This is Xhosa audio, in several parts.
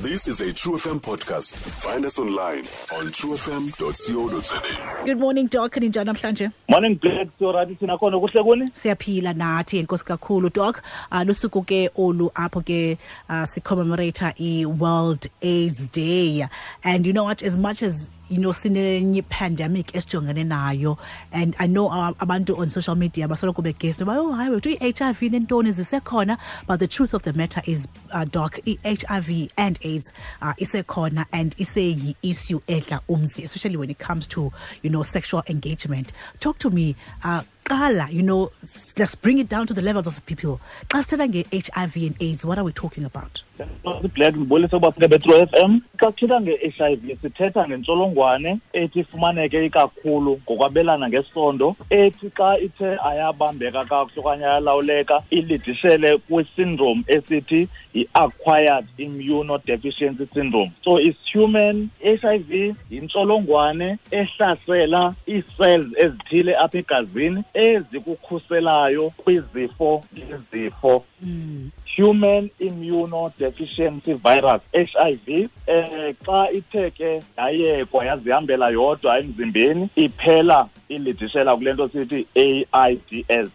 This is a True FM podcast. Find us online on truefm.co.za. Good morning, Doc. Ninjani namhlanje? Morning, Black. So right, thina khona kuhle kuni? Siyaphila nathi, enkosi kakhulu, Doc. Lusuku ke olu apho ke sicommemorate i-World AIDS Day. And you know what, as much as sinenye pandemic esijongene nayo, and I know abantu on social media basoloko begesi noba, oh hayi wethu, i-HIV nentoni zisekhona, but the truth of the matter is, Doc, i-HIV and AIDS isekhona and iseyi-issue edla umzi, especially when it comes to sexual engagement. Talk to me, qala, let's bring it down to the level of the people. Xa sithetha nge-HIV and AIDS, what are we talking about? Black, ndibulise ukuba beTrue FM. Xa sithetha nge-HIV sithetha ngentsholongwane ethi ifumaneke ikakhulu ngokwabelana ngesondo, ethi xa ithe ayabambeka kakuhle okanye ayalawuleka ilidishele kwi-syndrome esithi yi-acquired immunodeficiency syndrome. So it's human HIV, yintsholongwane ehlasela ii-cells ezithile apha egazini ezikukhuselayo kwizifo ngezifo. Human immunodeficiency virus, HIV, xa ithe ke yayekwa yazihambela yodwa emzimbeni, iphela ilidishela kule nto sithi AIDS, AIDS.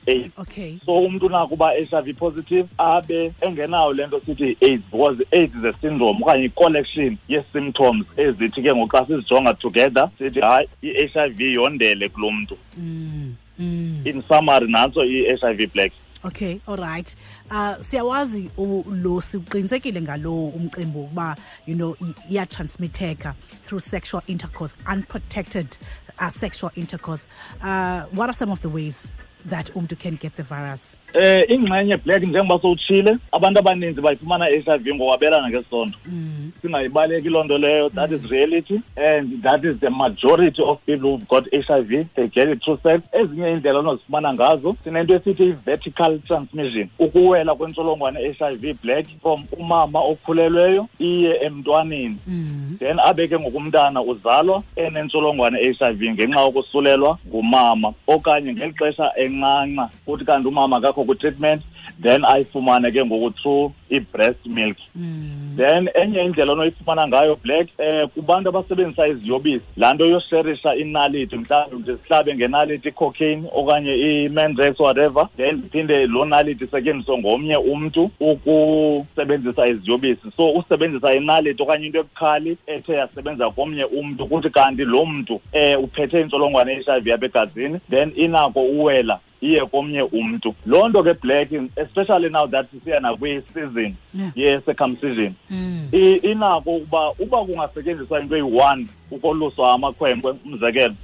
So umntu nakuba HIV positive abe engenayo le nto sithi AIDS, because AIDS is a syndrome okanye i-collection ye-symptoms ezithi ke ngoku xa sizijonga together sithi hayi, i-HIV yondele kulo mntu. In summary, nantso i-HIV, Black. Okay, all right. Siyawazi lo, siqinisekile ngalo umcimbi ukuba iyatransmitheka through sexual intercourse, unprotected sexual intercourse. What are some of the ways that umntu can get the virus? Ingxenye, Black, njengoba sowutshile, abantu abaninzi bayifumana i-HIV ngokwabelana ngesondo. Singayibaleki loo nto leyo, that is reality, and that is the majority of people who've got HIV, they get it through sex. Ezinye iindlela onozifumana ngazo, sinento esithi i-vertical transmission, ukuwela kwentsholongwane i-HIV, Black, from umama okhulelweyo iye emntwaneni. Then abe ke ngokumntana uzalwa enentsholongwane i-HIV ngenxa yokusulelwa ngumama, okanye ngeli xesha encanca kuthi kanti umama akakho kwi-treatment, then ayifumane ke ngoku through i-breast milk. Then enye indlela onoyifumana ngayo, Black, kubantu abasebenzisa iziyobisi, laa nto yosherisha inaliti, mhlawumbi ndizihlabe ngenaliti i-cocaine okanye i-Mandrax, whatever, then ndiphinde loo naliti isetyenziswe ngomnye umntu ukusebenzisa iziyobisi. So usebenzisa inaliti okanye into ebukhali ethe yasebenza komnye umntu, kuthi kanti lo mntu uphethe intsholongwane ye-HIV apha egazini, then inako uwela iye komnye umntu. Loo nto ke, Black, especially now that sisiya nakwi-season ye-circumcision, inako ukuba uba kungasetyenziswa into eyi-one ukoluswa amakhwenkwe, umzekelo,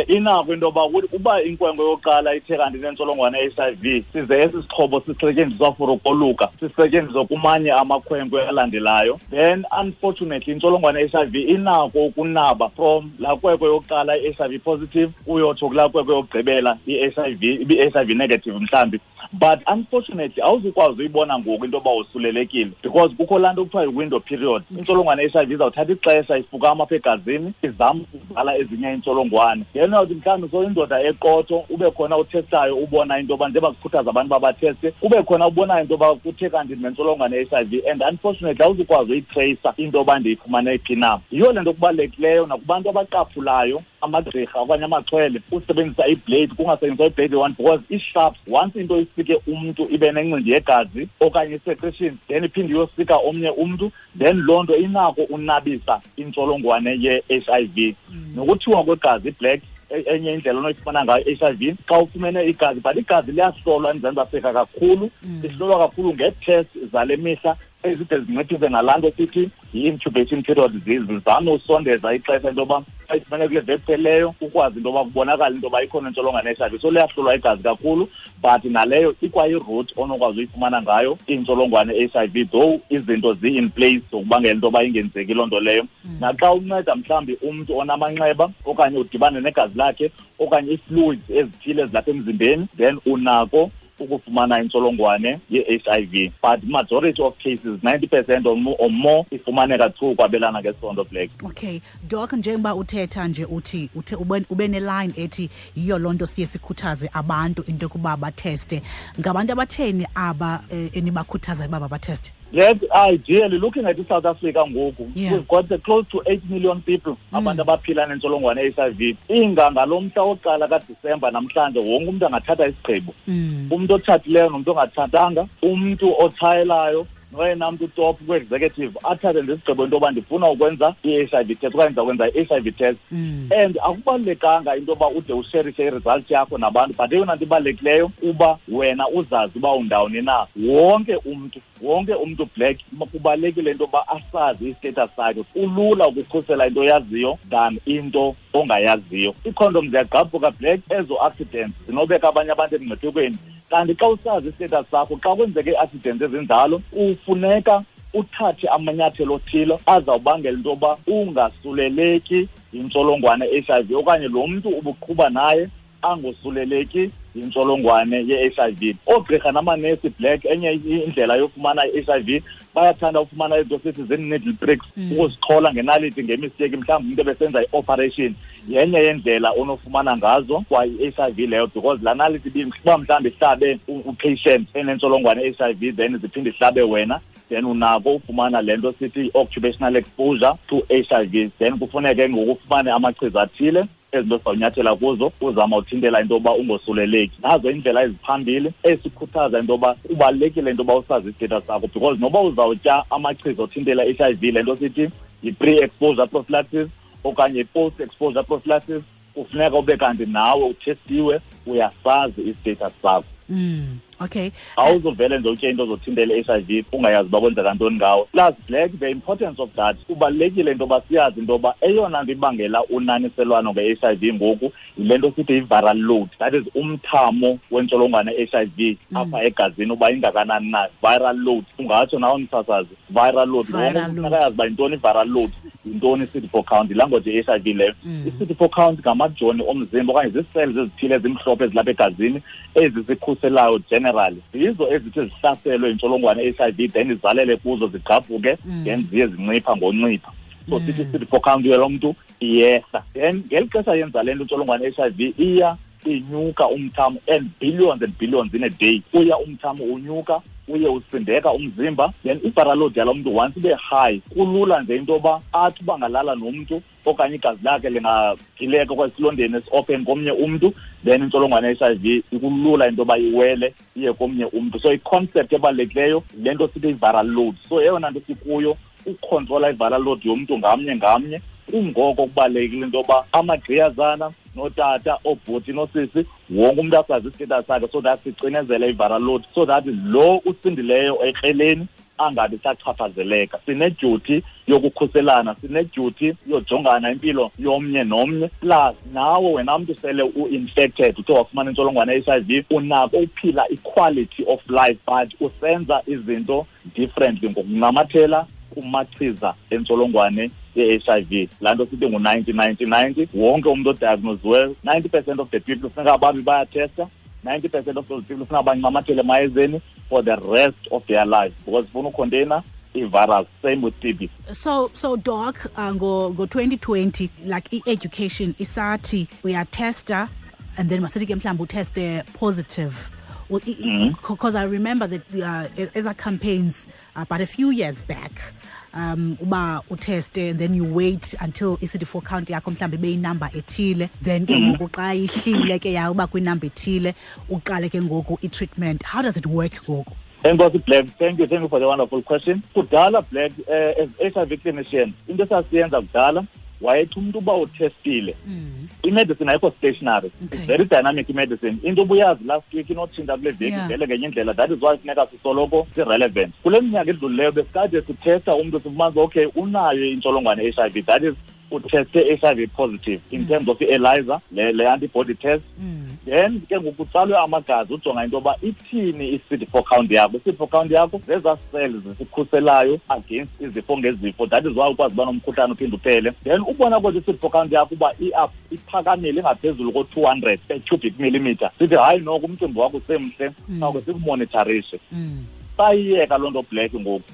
inako into yoba uba inkwenkwe yokuqala ithe kanti inentsholongwane ye-HIV, size esi sixhobo sisetyenziswa for ukoluka sisetyenziswe kumanye amakhwenkwe alandelayo, then unfortunately intsholongwane ye-HIV inako ukunaba from laa kwekwe yokuqala i-HIV positive uyotsho kulaa kwekwe yokugqibela i-HIV ibi-HIV negative mhlawumbi. But unfortunately awuzukwazi uyibona ngoku into yoba usulelekile, because kukho laa nto kuthiwa yi-window period. Intsholongwane ye-HIV izawuthatha ixesha ifukama apha egazini, izama ukuzala ezinye iintsholongwane. Then uyawuthi mhlawumbi soyindoda eqotho, ube khona uthestayo, ubona into yoba, njengoba kukhuthaza abantu uba batheste, kube khona ubonayo into yoba kuthe kanti nentsholongwane ye-HIV, and unfortunately awuzukwazi uyitreyisa into yoba ndiyifumane phi na. Yiyo le nto kubalulekileyo nakubantu abaqaphulayo, amagqirha okanye amaxhwele, usebenzisa iblade, kungasetyenziswa iblade one, because i-sharp, once into isike umntu ibe nencindi yegazi okanye i-secretion, then iphinde iyosika omnye umntu, then loo nto inako unabisa intsholongwane ye-HIV. Nokuthiwa kwegazi, Black, enye indlela onoyifumana ngayo i-HIV xa ufumene igazi, but igazi liyahlolwa eMzantsi Afrika kakhulu. Lihlolwa kakhulu ngee-test zale mihla ezide zinciphise ngalaa nto sithi yi-incubation period, zizame usondeza ixesha into yoba xa ifumene kule veki phelileyo ukwazi into yoba kubonakale into yoba ikhona intsholongwane ye-HIV. So liyahlolwa igazi kakhulu, but naleyo ikwayi-route onokwazi uyifumana ngayo intsholongwane ye-HIV, though izinto zi-in place zokubangela into yoba ingenzeki loo nto leyo. Naxa unceda mhlawumbi umntu onamanxeba okanye udibane negazi lakhe okanye ii-fluids ezithile ezilapha emzimbeni, then unako ukufumana intsholongwane ye-HIV. But majority of cases, 90% or more, ifumaneka through ukwabelana ngesondo, Black. Okay, Doc, njengoba uthetha nje uthi uthe ube ne-line ethi yiyo loo nto siye sikhuthaze abantu into yokuba batheste. Ngabantu abatheni aba enibakhuthaza uba babatheste? That ideally, looking at South Africa ngoku, we've got close to 8 million people abantu abaphila nentsholongwane ye-HIV. Inga ngalo mhla wokuqala kaDisemba namhlanje wonke umuntu angathatha isigqibo. Umuntu otshatileyo nomuntu ongatshatanga, umuntu otshayelayo noyena mntu top kwi-executive athathe ngesigqibo into yoba ndifuna ukwenza i-HIV test okanye ndizakwenza i-HIV test. And akubalulekanga into yoba ude usherishe i-result yakho nabantu, but eyona nto ibalulekileyo kuba wena uzazi uba undawoni na. Wonke umntu Black kubalulekile into yoba asazi i-status sakhe. Kulula ukukhusela into oyaziyo than into ongayaziyo. Iikhondom ziyagqabhuka Black, ezo accidents zinobeka abanye abantu emngciphekweni. Kanti xa usazi i-status sakho, xa kwenzeke ii-accidents ezinjalo, kufuneka uthathe amanyathelo othile azawubangela into yoba ungasuleleki yintsholongwane ye-HIV okanye lo mntu ubuqhuba naye angosuleleki yintsholongwane ye-HIV. Oogqirha namanesi Black, enye indlela yofumana i-HIV, bayathanda ufumana izinto sithi zii-needle pricks, ukuzixhola ngenaliti ngemisteki, mhlawumbi umntu ebesenza i-operation. Yenye yendlela onofumana ngazo kwa i-HIV leyo, because laa naliti uba mhlawumbi ihlabe u-patient enentsholongwane ye-HIV, then ziphinde ihlabe wena, then unako ufumana le nto sithi i-occupational exposure to HIV. Then kufuneke ngoku ufumane amachiza athile ezinto sizawunyathela kuzo uzama uthintela into yoba ungosuleleki. Nazo iindlela eziphambili esikhuthaza into yoba kubalulekile into yoba usazi i-status sakho, because noba uzawutya amachiza othintela i-HIV, le nto sithi yi-pre-exposure prophylaxis okanye i-post-exposure prophylaxis, kufuneka ube kanti nawe uthestiwe, uyasazi i-status sakho. Okay. Awuzovele nje utye into ozothintela i-HIV ungayazi uba kwenzeka ntoni ngawo. Plus Black, the importance of that, kubalulekile into yoba siyazi into yoba eyona nto ibangela unaniselwano nge-HIV ngoku yile nto sithi yi-viral load, that is umthamo wentsholongwane ye-HIV apha egazini uba ingakanani na. Viral load, ungatsho nawe msasazi, viral load. Viral Wonke umntu load. akayazi uba yintoni i-viral load, yintoni i-CD4 count, yilanguage ye-HIV leyo. I-CD4 count ngamajoni omzimba okanye zii-cells ezithile ezimhlophe ezilapha egazini ezisikhuselayo generally. Zizo ezithi zihlaselwe yintsholongwane ye-HIV, then izalele kuzo zigqabhuke, then ziye zincipha ngoncipha. So sithi i-CD4 count yalo mntu iyehla. Then ngeli xesha yenza le nto intsholongwane ye-HIV iya inyuka umthamo, and billions and billions in a day. Uya umthamo unyuka, uye usindeka umzimba, then i-viral load yalo mntu once ibe high, kulula nje into yoba athi uba ngalala nomntu okanye igazi lakhe lingagileka okanye esilondeni esi-open komnye umntu, then intsholongwane ye-HIV ikulula into yoba iwele iye komnye umntu. So i-concept ebalulekileyo yile nto sithi i-viral load. So eyona nto sikuyo ukukhontrola i-viral load yomntu ngamnye ngamnye. Kungoko kubalulekile into yoba amagqiyazana nootata, oobhuti noosisi, wonke umntu asazi i-status sakhe, so that sicinezele i-viral load, so that lo usindileyo ekreleni angabi sachaphazeleka. Sinedyuti yokukhuselana, sinedyuti yojongana impilo yomnye nomnye. Plus nawe wena mntu sele u-infected, uthe wafumana intsholongwane ye-HIV, unako uphila i-quality of life, but usenza izinto differently ngokunamathela kumachiza entsholongwane ye-HIV. Laa nto sithi ngu-ninety, ninety, ninety. Wonke umntu odiagnoziweyo, 90% of the people funeka babe bayathesta, 90% of those people funeka bancamathele emayezeni for the rest of their life, because funa ucontainer i-virus. Same with TB. So Doc, ngo 2020, like i-education isathi uyatesta and then masithi ke mhlawumbi uteste positive. Well, because I remember that as our campaigns, but a few years back, uba uteste and then you wait until i-CD4 count yakho mhlawumbi ibe yinumber ethile, then ke ngoku xa ihlile ke ya uba kwinumber ethile uqale ke ngoku i-treatment. How does it work ngoku? Enkosi Black, thank you for the wonderful question. Kudala Black, as HIV clinician, into esasiyenza kudala, wayethi umntu uba uthestile, i-medicine ayikho stationary. It's very dynamic i-medicine. Into obuyazi last week inotshintsha kule veki, vele ngenye indlela. That is why funeka sisoloko si-relevant. Kule minyaka edlulileyo besikade sithesta umntu sifumanisa, okay, unayo intsholongwane ye-HIV, that is utheste HIV positive in terms of i-ELISA, le antibody test. Then ke ngoku kutsalwe amagazi ujonga into yoba ithini i-CD4 count yakho. I-CD4 count yakho zezaa cells zisikhuselayo against izifo ngezifo. That is why ukwazi uba nomkhuhlane uphinde uphele. Then ubona kodwa i-CD4 count yakho uba iphakamile ingaphezulu ko-200 per cubic millimeter. Sithi hayi noko umcimbi wakho usemhle, sawuke sikumonitorishe. Sayiyeka loo nto Black ngoku.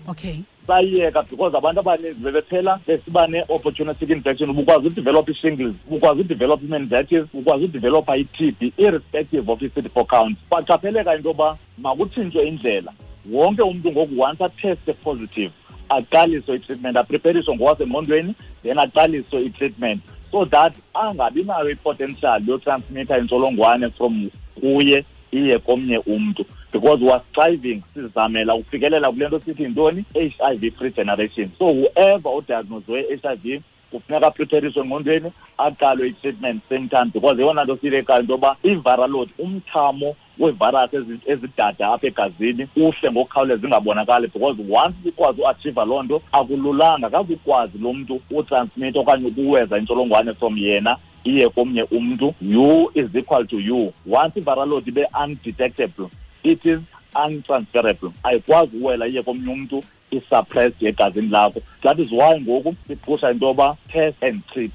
Sayiyeka because abantu abaninzi bebephela besiba ne-opportunistic infection. Ubukwazi udevelop i-shingles, ubukwazi udevelop i-meningitis, ubukwazi udevelopa i-TB irrespective of i-CD4 count. Kwaqapheleka into yoba makutshintshwe indlela. Wonke umntu ngoku once ateste positive, aqaliswe i-treatment, aprepariswe ngokwasengqondweni, then aqaliswe i-treatment so that angabi nayo i-potential yotransmitha intsholongwane from kuye iye komnye umntu, because we are striving, sizamela ukufikelela kule nto sithi yintoni, HIV free generation. So whoever odiagnoswe HIV kufuneka aprepariswe engqondweni, aqalwe i-treatment same time, because eyona nto siyilekayo into yoba i-viral load, umthamo wevirus ezidada apha egazini uhle ngokukhawuleza ingabonakali, because once ikwazi uachieve loo nto akululanga, akazukwazi lo mntu utransmit okanye ukuweza intsholongwane from yena iye komnye umntu. U is equal to U. Once i-viral load ibe undetectable, it is untransferable, ayikwazi uwela iye komnye umntu, i-suppressed egazini lakho. That is why ngoku siphusha into yoba test and treat.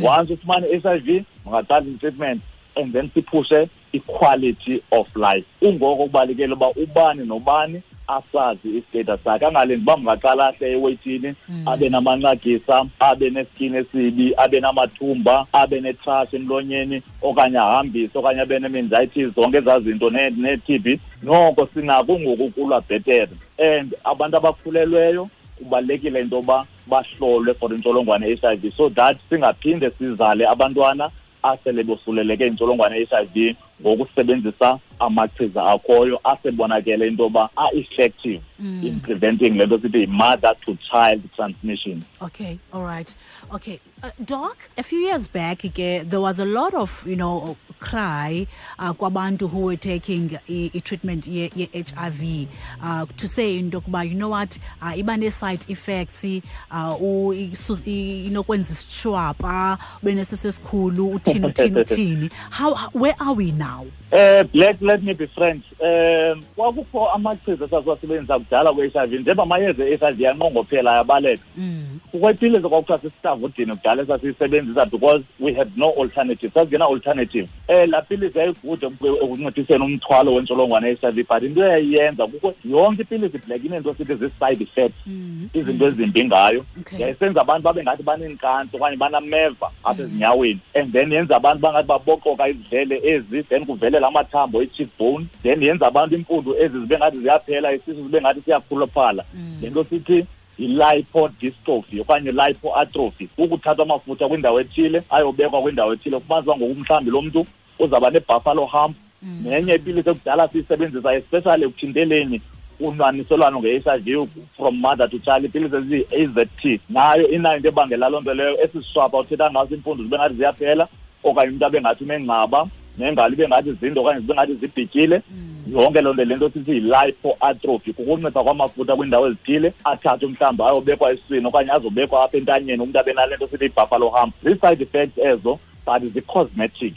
Once ufumane i-HIV, ungaqala i-treatment and then siphushe i-quality of life. Kungoko kubalulekile uba ubani nobani asazi istatus sakhe, angalindi uba mngaqala ahle eweyithini, abe namanxagisa, abe neskin esibi, abe namathumba, abe netrash emlonyeni, okanye ahambise, okanye abe ne-meningitis, zonke ezaa zinto ne-TB. Noko sinako ngoku ukulwa bhetere. And abantu abakhulelweyo kubalulekile into yoba bahlolwe for intsholongwane ye-HIV so that singaphinde sizale abantwana asele bosuleleke intsholongwane ye-HIV ngokusebenzisa amachiza akhoyo asebonakele into yoba a-effective in preventing le nto sithi yi-mother to child transmission. Okay, all right. Okay, Doc, a few years back ke, there was a lot of, cry kwabantu who were taking i-treatment ye-HIV to say into yokuba, you know what, iba nee-side effects, inokwenza isitshwapa, ube nesisi esikhulu, uthini, uthini, uthini. Where are we now? Black, let me be frank. Kwakukho amachiza esasiwasebenzisa kudala kwe-HIV, njengoba amayeza e-HIV anqongophela ayabaleka. Kukho ipilisi kwakuthiwa sisistavudini kudala esasiyisebenzisa because we had no alternative. Sasingena alternative. Laa pilisi yayigude ekunciphiseni umthwalo wentsholongwane ye-HIV, but into eyayiyenza kukho yonke ipilisi Black ineento sithi zii-side effects, izinto ezimbi ngayo. Yayisenza abantu babe ngathi baneenkansi okanye banameva apha ezinyaweni, and then yenza abantu bangathi baboqoka izidlele ezi, then kuvelela amathambo i-cheekbone, then yenza abantu impundu ezi zibe ngathi ziyaphela, isisu zibe ngathi siyakhuluphala. Le nto sithi yi-lipodystrophy okanye lipoatrophy, ukuthatha amafutha kwindawo ethile ayobekwa kwindawo ethile. Kufumanisa uba ngoku mhlawumbi lo mntu uzawuba ne-buffalo hump. Nenye ipilisi ekudala siyisebenzisa especially ekuthinteleni unwaniselwano nge-HIV from mother to child, ipilisi eziyi-AZT, nayo inayo into ebangela loo nto leyo. Esi sishwapha uthetha ngaso, iimpundu zibe ngathi ziyaphela, okanye umntu abe ngathi unengcaba, nengalo ibe ngathi zinde okanye zibe ngathi zibhityile. Yonke loo nto, le nto sithi yi-lipoatrophy, kukuncipha kwamafutha kwiindawo ezithile, athathwe mhlawumbi ayobekwa esiswini okanye azobekwa apha entanyeni, umntu abe nale nto sithi yi-buffalo hump. Zii-side effects ezo, but zi-cosmetic.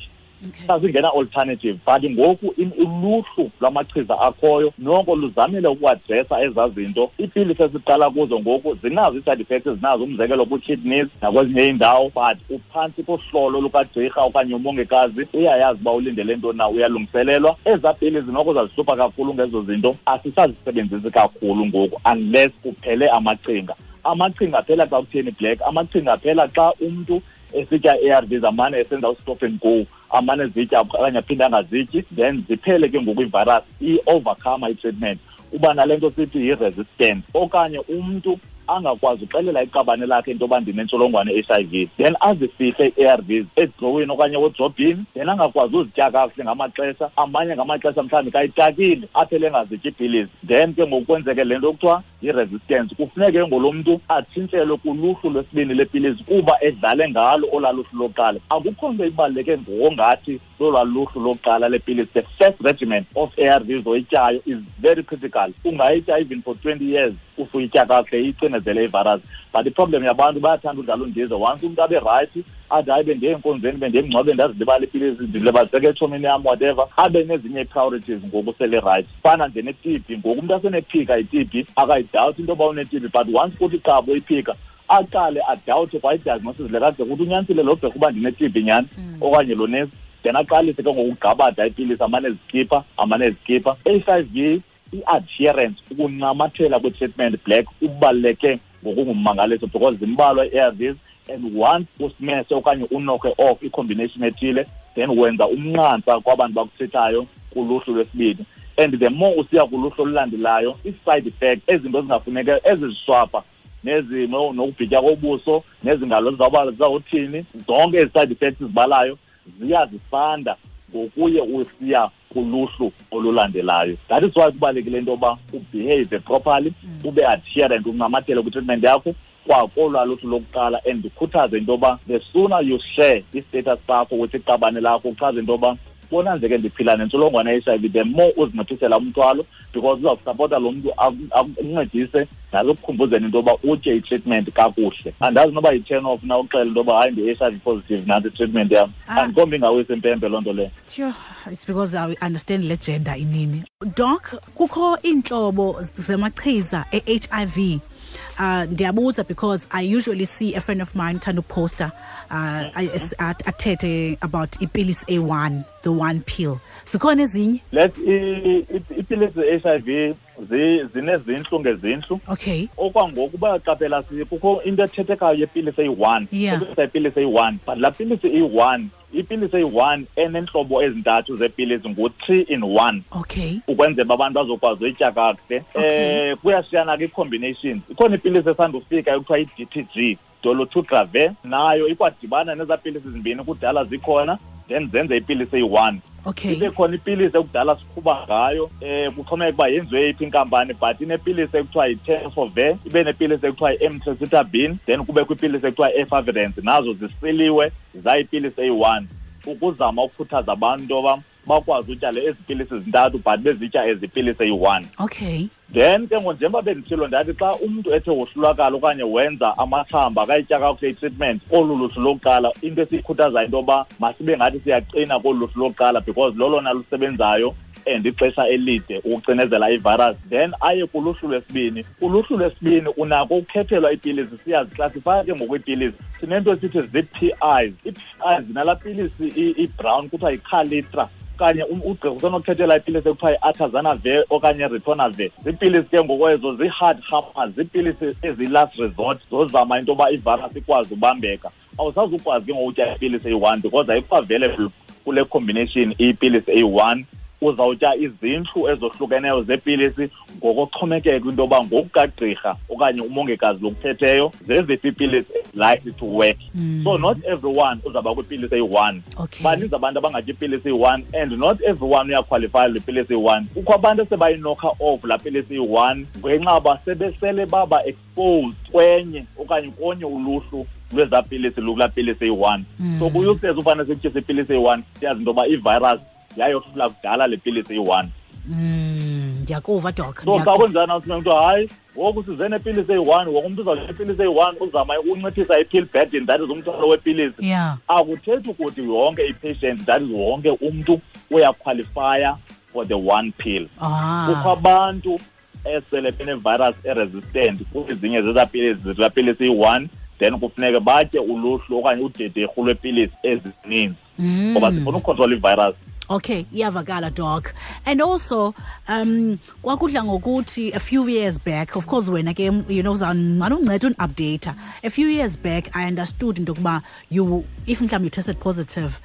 Sasingena alternative, but ngoku uluhlu lwamachiza akhoyo noko luzamile ukuadresa ezaa zinto. Iipilisi esiqala kuzo ngoku zinazo ii-side effects ezinazo, umzekelo kwii-kidneys nakwezinye iindawo, but uphantsi kohlolo lukagqirha okanye umongikazi, uyayazi uba ulindele ntoni na, uyalungiselelwa. Ezaa pilisi noko zazihlupha kakhulu ngezo zinto, asisazisebenzisi kakhulu ngoku unless kuphele amaqhinga. Amaqhinga aphela xa kutheni, Black? Amaqhinga aphela xa umntu esitya i-A R Vs, amane esenza u-stop and go, amane ezitya okanye aphinde angazityi, then ziphele ke ngoku ivirus, i-overcome i-treatment, uba nale nto sithi yi-resistance, okanye umntu angakwazi uxelela iqabane lakhe into yoba ndinentsholongwane ye-HIV, then azifihle i-A R Vs edrowini okanye ewodrobhini, then angakwazi uzitya kakuhle ngamaxesha amanye, ngamaxesha mhlawumbi kayitakile, aphele engazityi iipilisi, then ke ngoku kwenzeke le nto kuthiwa yi-resistance. Kufuneke ngolo mntu atshintshelwe kuluhlu lwesibini lepilisi kuba edlale ngalo olaa luhlu lokuqala. Akukho nto ibaluleke ngokungathi lolwaa luhlu lokuqala lepilisi. The first regimen of A R Vs oyityayo is very critical. Ungayitya even for 20 years if uyitya kakuhle, icinezele ivirus. But iproblem yabantu, bayathanda udlala undize. Once umntu abe right, athi hayi, bendiye enkonzweni, bendiye emngcwabeni, ndazilibala ipilisi, ndilibaziseke etshomini yam, whatever, abe nezinye ii-priorities ngoku sele right. Fana nje ne-TB, ngoku umntu asenephika i-TB, akayidawuthi into yoba une-TB, but once kuthi qabo iphika, aqale adawuthe kwa idiagnosis le kade kuthi unyanisile lo gqirha uba ndine-TB nyhani okanye lo nesi, then aqalise ke ngoku ugqabada iipilisi, amane ezikhipha, amane ezikhipha. HIV, i-adherence, ukuncamathela kwi-treatment, Black, kubaluleke ngokungummangaliso, because zimbalwa ii-A R Vs, and once usimese okanye unokhe off i-combination ethile, then wenza umnqantsa kwabantu bakuthethayo kuluhlu lwesibini. And the more usiya kuluhlu olulandelayo, i-side effect, ezinto ezingafuneka, eziziswapha, nezimo nokubhitya kobuso, nezingalo zizawuthini, zonke ezi side effects zibalayo ziyazifanda ngokuye usiya kuluhlu olulandelayo. That is why kubalulekile into yoba ubehave properly, ube adherent, uncamathele kwi-treatment yakho kwakolwa luhlu lokuqala. And ndikhuthaze into yoba the sooner you share i-status sakho with iqabane lakho, uchaze into yoba bona nje ke ndiphila nentsholongwane ye-HIV, the more uzinciphisela umthwalo, because uzawusapota lo mntu akuncedise nalokukhumbuzeni into yoba utye i-treatment kakuhle. Andazi noba yi-turn off na uxela into yoba hayi ndi-HIV positive nantsi i-treatment yam. Andikombi ingawisa impempe loo nto leyo. It's because I understand le gender inini. Doc, kukho iintlobo zamachiza e-HIV. Ndiyabuza because I usually see a friend of mine thanda uposta athethe about ipilisi A1, the one pill. Zikhona ezinye? Let ipilisi ze-HIV zinezintlu ngezintlu. Okay. Okwangoku bayaqaphela kukho into ethethekayo yepilisi eyi-1. Ipilisi eyi-1. But laa pilisi eyi-1, ipilisi eyi-1 enentlobo ezintathu zepilisi ngu-3 in 1. Okay. Ukwenzela abantu bazokwazi uyitya kakuhle. Kuyashiyana ke i-combinations. Ikhona ipilisi esandufika ekuthiwa i-DTG, dolutegravir, nayo ikwadibana nezaa pilisi zimbini kudala zikhona, then zenze ipilisi eyi-1. Okay. Ibe khona ipilisi ekudala siqhuba ngayo, kuxhomekeka uba yenziwe yiphi inkampani, but inepilisi ekuthiwa yi-tenofovir, ibe nepilisi ekuthiwa yi-emtricitabine, then kubekho ipilisi ekuthiwa yi-efavirenz, nazo zisiliwe zayipilisi eyi-1, ukuzama ukukhuthaza abantu into yoba bakwazi utya le ezi pilisi zintathu, but bezitya ezi pilisi eyi-1. Okay. Then ke ngoku njengoba benditshilo ndathi xa umntu ethe wohlulakala okanye wenza amathamba akayitya kakuhle i-treatment, olu luhlu lokuqala, into esiyikhuthazayo into yoba masibe ngathi siyaqina kolu luhlu lokuqala, because lolona lusebenzayo and ixesha elide ukucinezela ivirus. Then aye kuluhlu lwesibini. Uluhlu lwesibini unako ukukhethelwa iipilisi, siyaziklasifaya ke ngoku iipilisi. Sinento esithi zii-P Is. Ii-P Is zinalaa pilisi i-brown kuthiwa yiKalitra, okanye ugqirha usenokukhethela ipilisi ekuthiwa yi-atazanavir okanye ritonavir. Ziipilisi ke ngoku ezo zii-hard hammers, ziipilisi ezi-last resort zozama into yoba ivirus ikwazi ubambeka. Awusazukwazi ke ngoku utya ipilisi eyi-1 because ayikho available kule combination ipilisi eyi-1. Uzawutya izintlu ezohlukeneyo zepilisi ngokoxhomekeka into yoba ngokukagqirha okanye umongikazi lokuphetheyo zeziphi iipilisi likely to work. So not everyone uzawuba kwipilisi eyi-1. Baninzi abantu abangatyi ipilisi eyi-1 and not everyone uyakhwalifaya le pilisi eyi-1. Kukho abantu esebayinokha off laa pilisi eyi-1 ngenxa yoba sebesele baba exposed kwenye okanye konye uluhlu lwezaa pilisi lukulaa pilisi eyi-1. So kuyuhlezi ufane sikutyise ipilisi eyi-1, siyazi into yoba ivirus yayohlula kudala le pilisi eyi-1. Ndiyakuva, Doc. So xa kunjani awuthi mntu hayi ngoku size nepilisi eyi-1, wonke umntu uzawutya ipilisi eyi-1, uzama ukunciphisa i-pill burden, that is umthwalo wepilisi. Akuthethi ukuthi yonke i-patient, that is wonke umntu uyakhwalifaya for the one pill. Kukho abantu esele bene-virus e-resistant kwezinye zezaa pilisi, zezaa pilisi eyi-1, then kufuneke batye uluhlu okanye udederhu lwepilisi ezininzi ngoba sifuna ukukhontrola ivirus. Okay, iyavakala, Doc. And also, kwakudla ngokuthi a few years back, of course wena ke, uzawumane unceda uni-update. A few years back, I understood into yokuba you, if mhlawumbi you tested positive,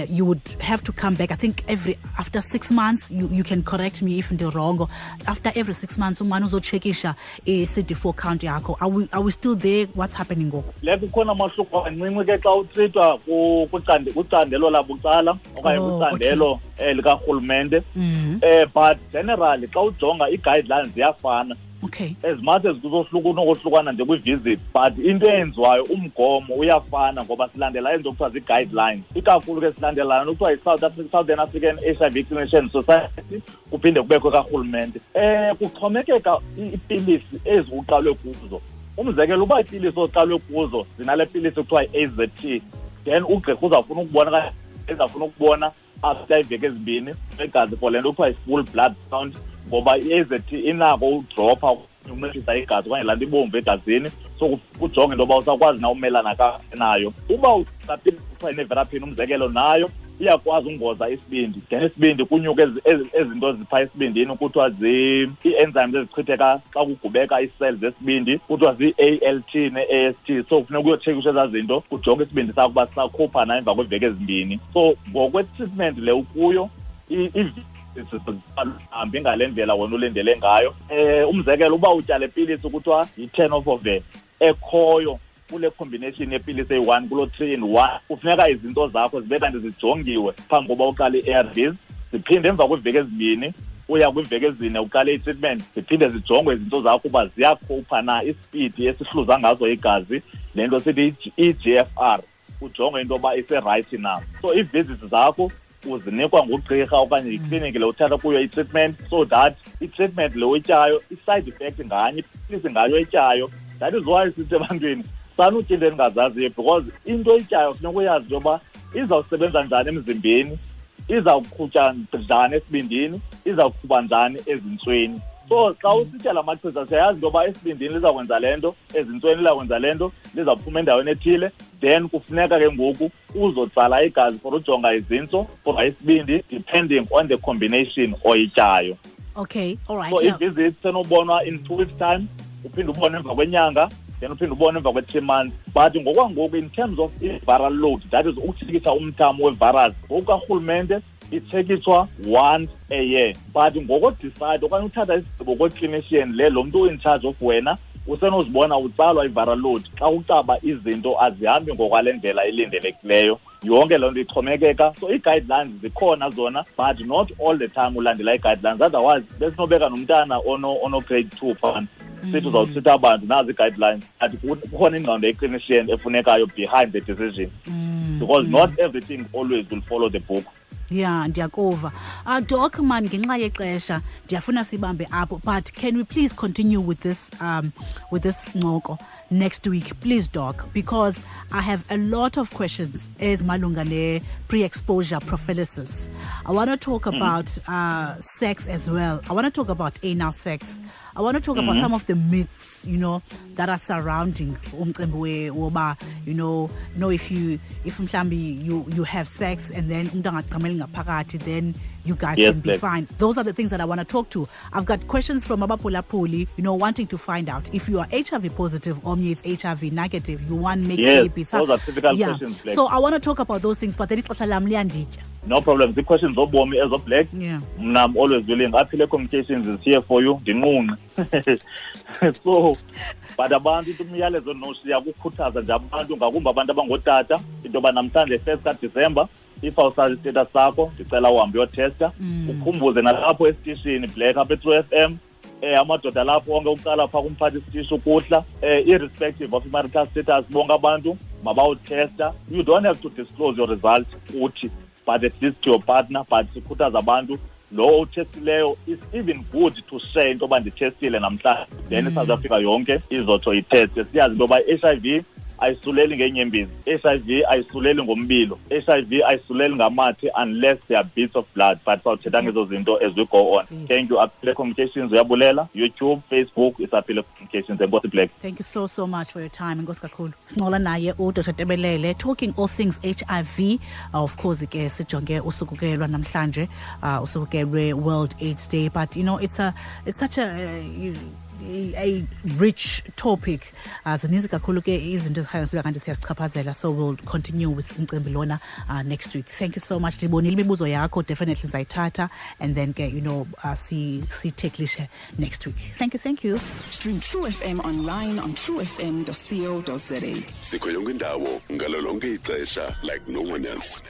you would have to come back. I think every after 6 months, you can correct me if ndi-wrong. After every 6 months, umane uzotshekisha i-CD4 count yakho. Are we still there? What's happening ngoku? Le kukhona amahluko ancinci ke xa utreatwa kwicandelo labucala okanye kwicandelo likarhulumente. But generally xa ujonga ii-guidelines ziyafana. As much as kuzohluka unokohlukana nje kwi-visit, but into eyenziwayo umgomo uyafana ngoba silandela into kuthiwa zii-guidelines. Ikakhulu ke silandela laa kuthiwa yi-South Southern African HIV Clinician Society, kuphinde kubekho karhulumente. Kuxhomekeka iipilisi ezi uqalwe kuzo. Umzekelo, uba iipilisi oqalwe kuzo zinale pilisi kuthiwa yi-AZT, then ugqirha uzawufuna ukubona okanye ezawufuna ukubona after iiveki ezimbini egazi for le nto kuthiwa yi-full blood count, ngoba i-AZT inako udropha unciphisa igazi okanye laa nto ibomvu egazini, so kujonge into yoba usakwazi na umelana kakuhle nayo. Uba usapilisi kuthiwa yi-nevirapine, umzekelo, nayo iyakwazi ungoza isibindi, then isibindi kunyuke ezi zinto ziphaa esibindini kuthiwa ii-enzymes ezichitheka xa kugubeka ii-cells zesibindi, kuthiwa zii-ALT ne-AST. So kufuneka uyotshekisha ezaa zinto, kujonge isibindi sakho uba sisakhupha na emva kweeveki ezimbini. So ngokwe-treatment le ukuyo, Hambi ngale ndlela wena ulindele ngayo. Umzekelo, uba utya le pilisi kuthiwa yi-tenofovir ekhoyo kule combination yepilisi eyi-1 kulo 3 in 1, kufuneka izinto zakho zibe kanti zijongiwe phambi koba uqale i-ARVs, ziphinde emva kweeveki 2 uya kwiiveki 4 uqale i-treatment, ziphinde zijongwe izinto zakho uba ziyakhupha na isipidi esihluza ngazo igazi, le nto sithi i-eGFR, ujongwe into yoba iserayithi na. So ii-visits zakho uzinikwa ngugqirha okanye yikliniki le uthatha kuyo i-treatment, so that i-treatment le uyityayo, i-side effect nganye, ipilisi ngayo oyityayo. That is why sithi ebantwini sanutya into endingazaziyo, because into oyityayo funeka uyazi into yoba izawusebenza njani emzimbeni, izawuqhutsha njani esibindini, izawuqhuba njani ezintsweni. So xa usitya la machiza siyayazi into yoba esibindini lizawukwenza le nto, ezintsweni lizawukwenza le nto, lizawuphuma endaweni ethile. Then kufuneka ke ngoku uzotsala igazi for ujonga izintso, for isibindi, depending on the combination oyityayo. Okay, all right. So i-visit senobonwa in 2 weeks time, uphinde ubone emva kwenyanga, then uphinde ubone emva kwe-3 months. But ngokwangoku in terms of i-viral load, that is ukutshekisha umthamo we-virus, ngokukarhulumente itshekishwa once a year. But ngokodecide okanye uthatha isigqibo kwe-clinician le, lo mntu in charge of wena, usenozibona utsalwa i-viral load xa ucaba izinto azihambi ngokwale ndlela ilindelekileyo. Yonke loo nto ixhomekeka. So ii-guidelines zikhona zona, but not all the time ulandela ii-guidelines. Otherwise besinobeka nomntana ono-grade 2 phana, sithi uzawuthitha abantu nazi ii-guidelines, but kukhona ingqondo ye-clinician efunekayo behind the decision, because not everything always will follow the book. Yeah, ndiyakuva. Doc, man, ngenxa yexesha ndiyafuna sibambe apho, but can we please continue with this ncoko next week, please, Doc, because I have a lot of questions ezimalunga ne pre-exposure prophylaxis. I want to talk about sex as well. I want to talk about anal sex. I want to talk about some of the myths, you know, that are surrounding umcimbi woba, you know, no, if mhlambi you have sex and then umntu angachameli ngaphakathi, then you guys can be fine. Those are the things that I want to talk to. I've got questions from Abapulapuli, you know, wanting to find out if you are HIV positive or is HIV negative, you want make babies. Those are typical questions, Black. So I want to talk about those things, but then no problem. The questions obomi as of Black. Yeah. I'm always willing. Aphile Communications is here for you. So, but abantu into umyalezo noshiya kukhuthaza nje abantu, ngakumbi abantu abangootata, into yoba namhlanje 1 kaDisemba, if awusazi status sakho, ndicela uhambe uyotesta. Ukhumbuze nalapho esitishini Black apha e-True FM, amadoda lapho onke uqala phaa kumphathi isitishi ukuhla, irrespective of marital status, bonke abantu mabawuthesta. You don't have to disclose your result kuthi, but at least to your partner. But sikhuthaza abantu, lo uthestileyo, it's even good to share into yoba ndithestile namhlanje, then iSouth Africa yonke izotsho itheste. Siyazi into yoba i-HIV ayisuleli ngeenyembezi, HIV ayisuleli ngombilo, HIV ayisuleli ngamathe unless there are bits of blood. But sawuthetha ngezo zinto as we go on. Please. Thank you. Aphile Communications uyabulela. YouTube, Facebook, it's Aphile Communications. Enkosi Black. Thank you so much for your time. Enkosi kakhulu. Sincola naye uDr Tebelele talking all things HIV. Of course ke sijonge usuku ke lwanamhlanje, usuku ke lwe-World AIDS Day, but you know it's such a rich topic. Zininzi kakhulu ke izinto ezikhanya sibe kanti siyazichaphazela, so we'll continue with umcimbi lona next week. Thank you so much. Ndibonile imibuzo yakho, definitely ndizayithatha and then ke you know sitheklishe next week. Thank you. Stream True FM online on truefm.co.za. Sikho yonke indawo ngalo lonke ixesha like no one else.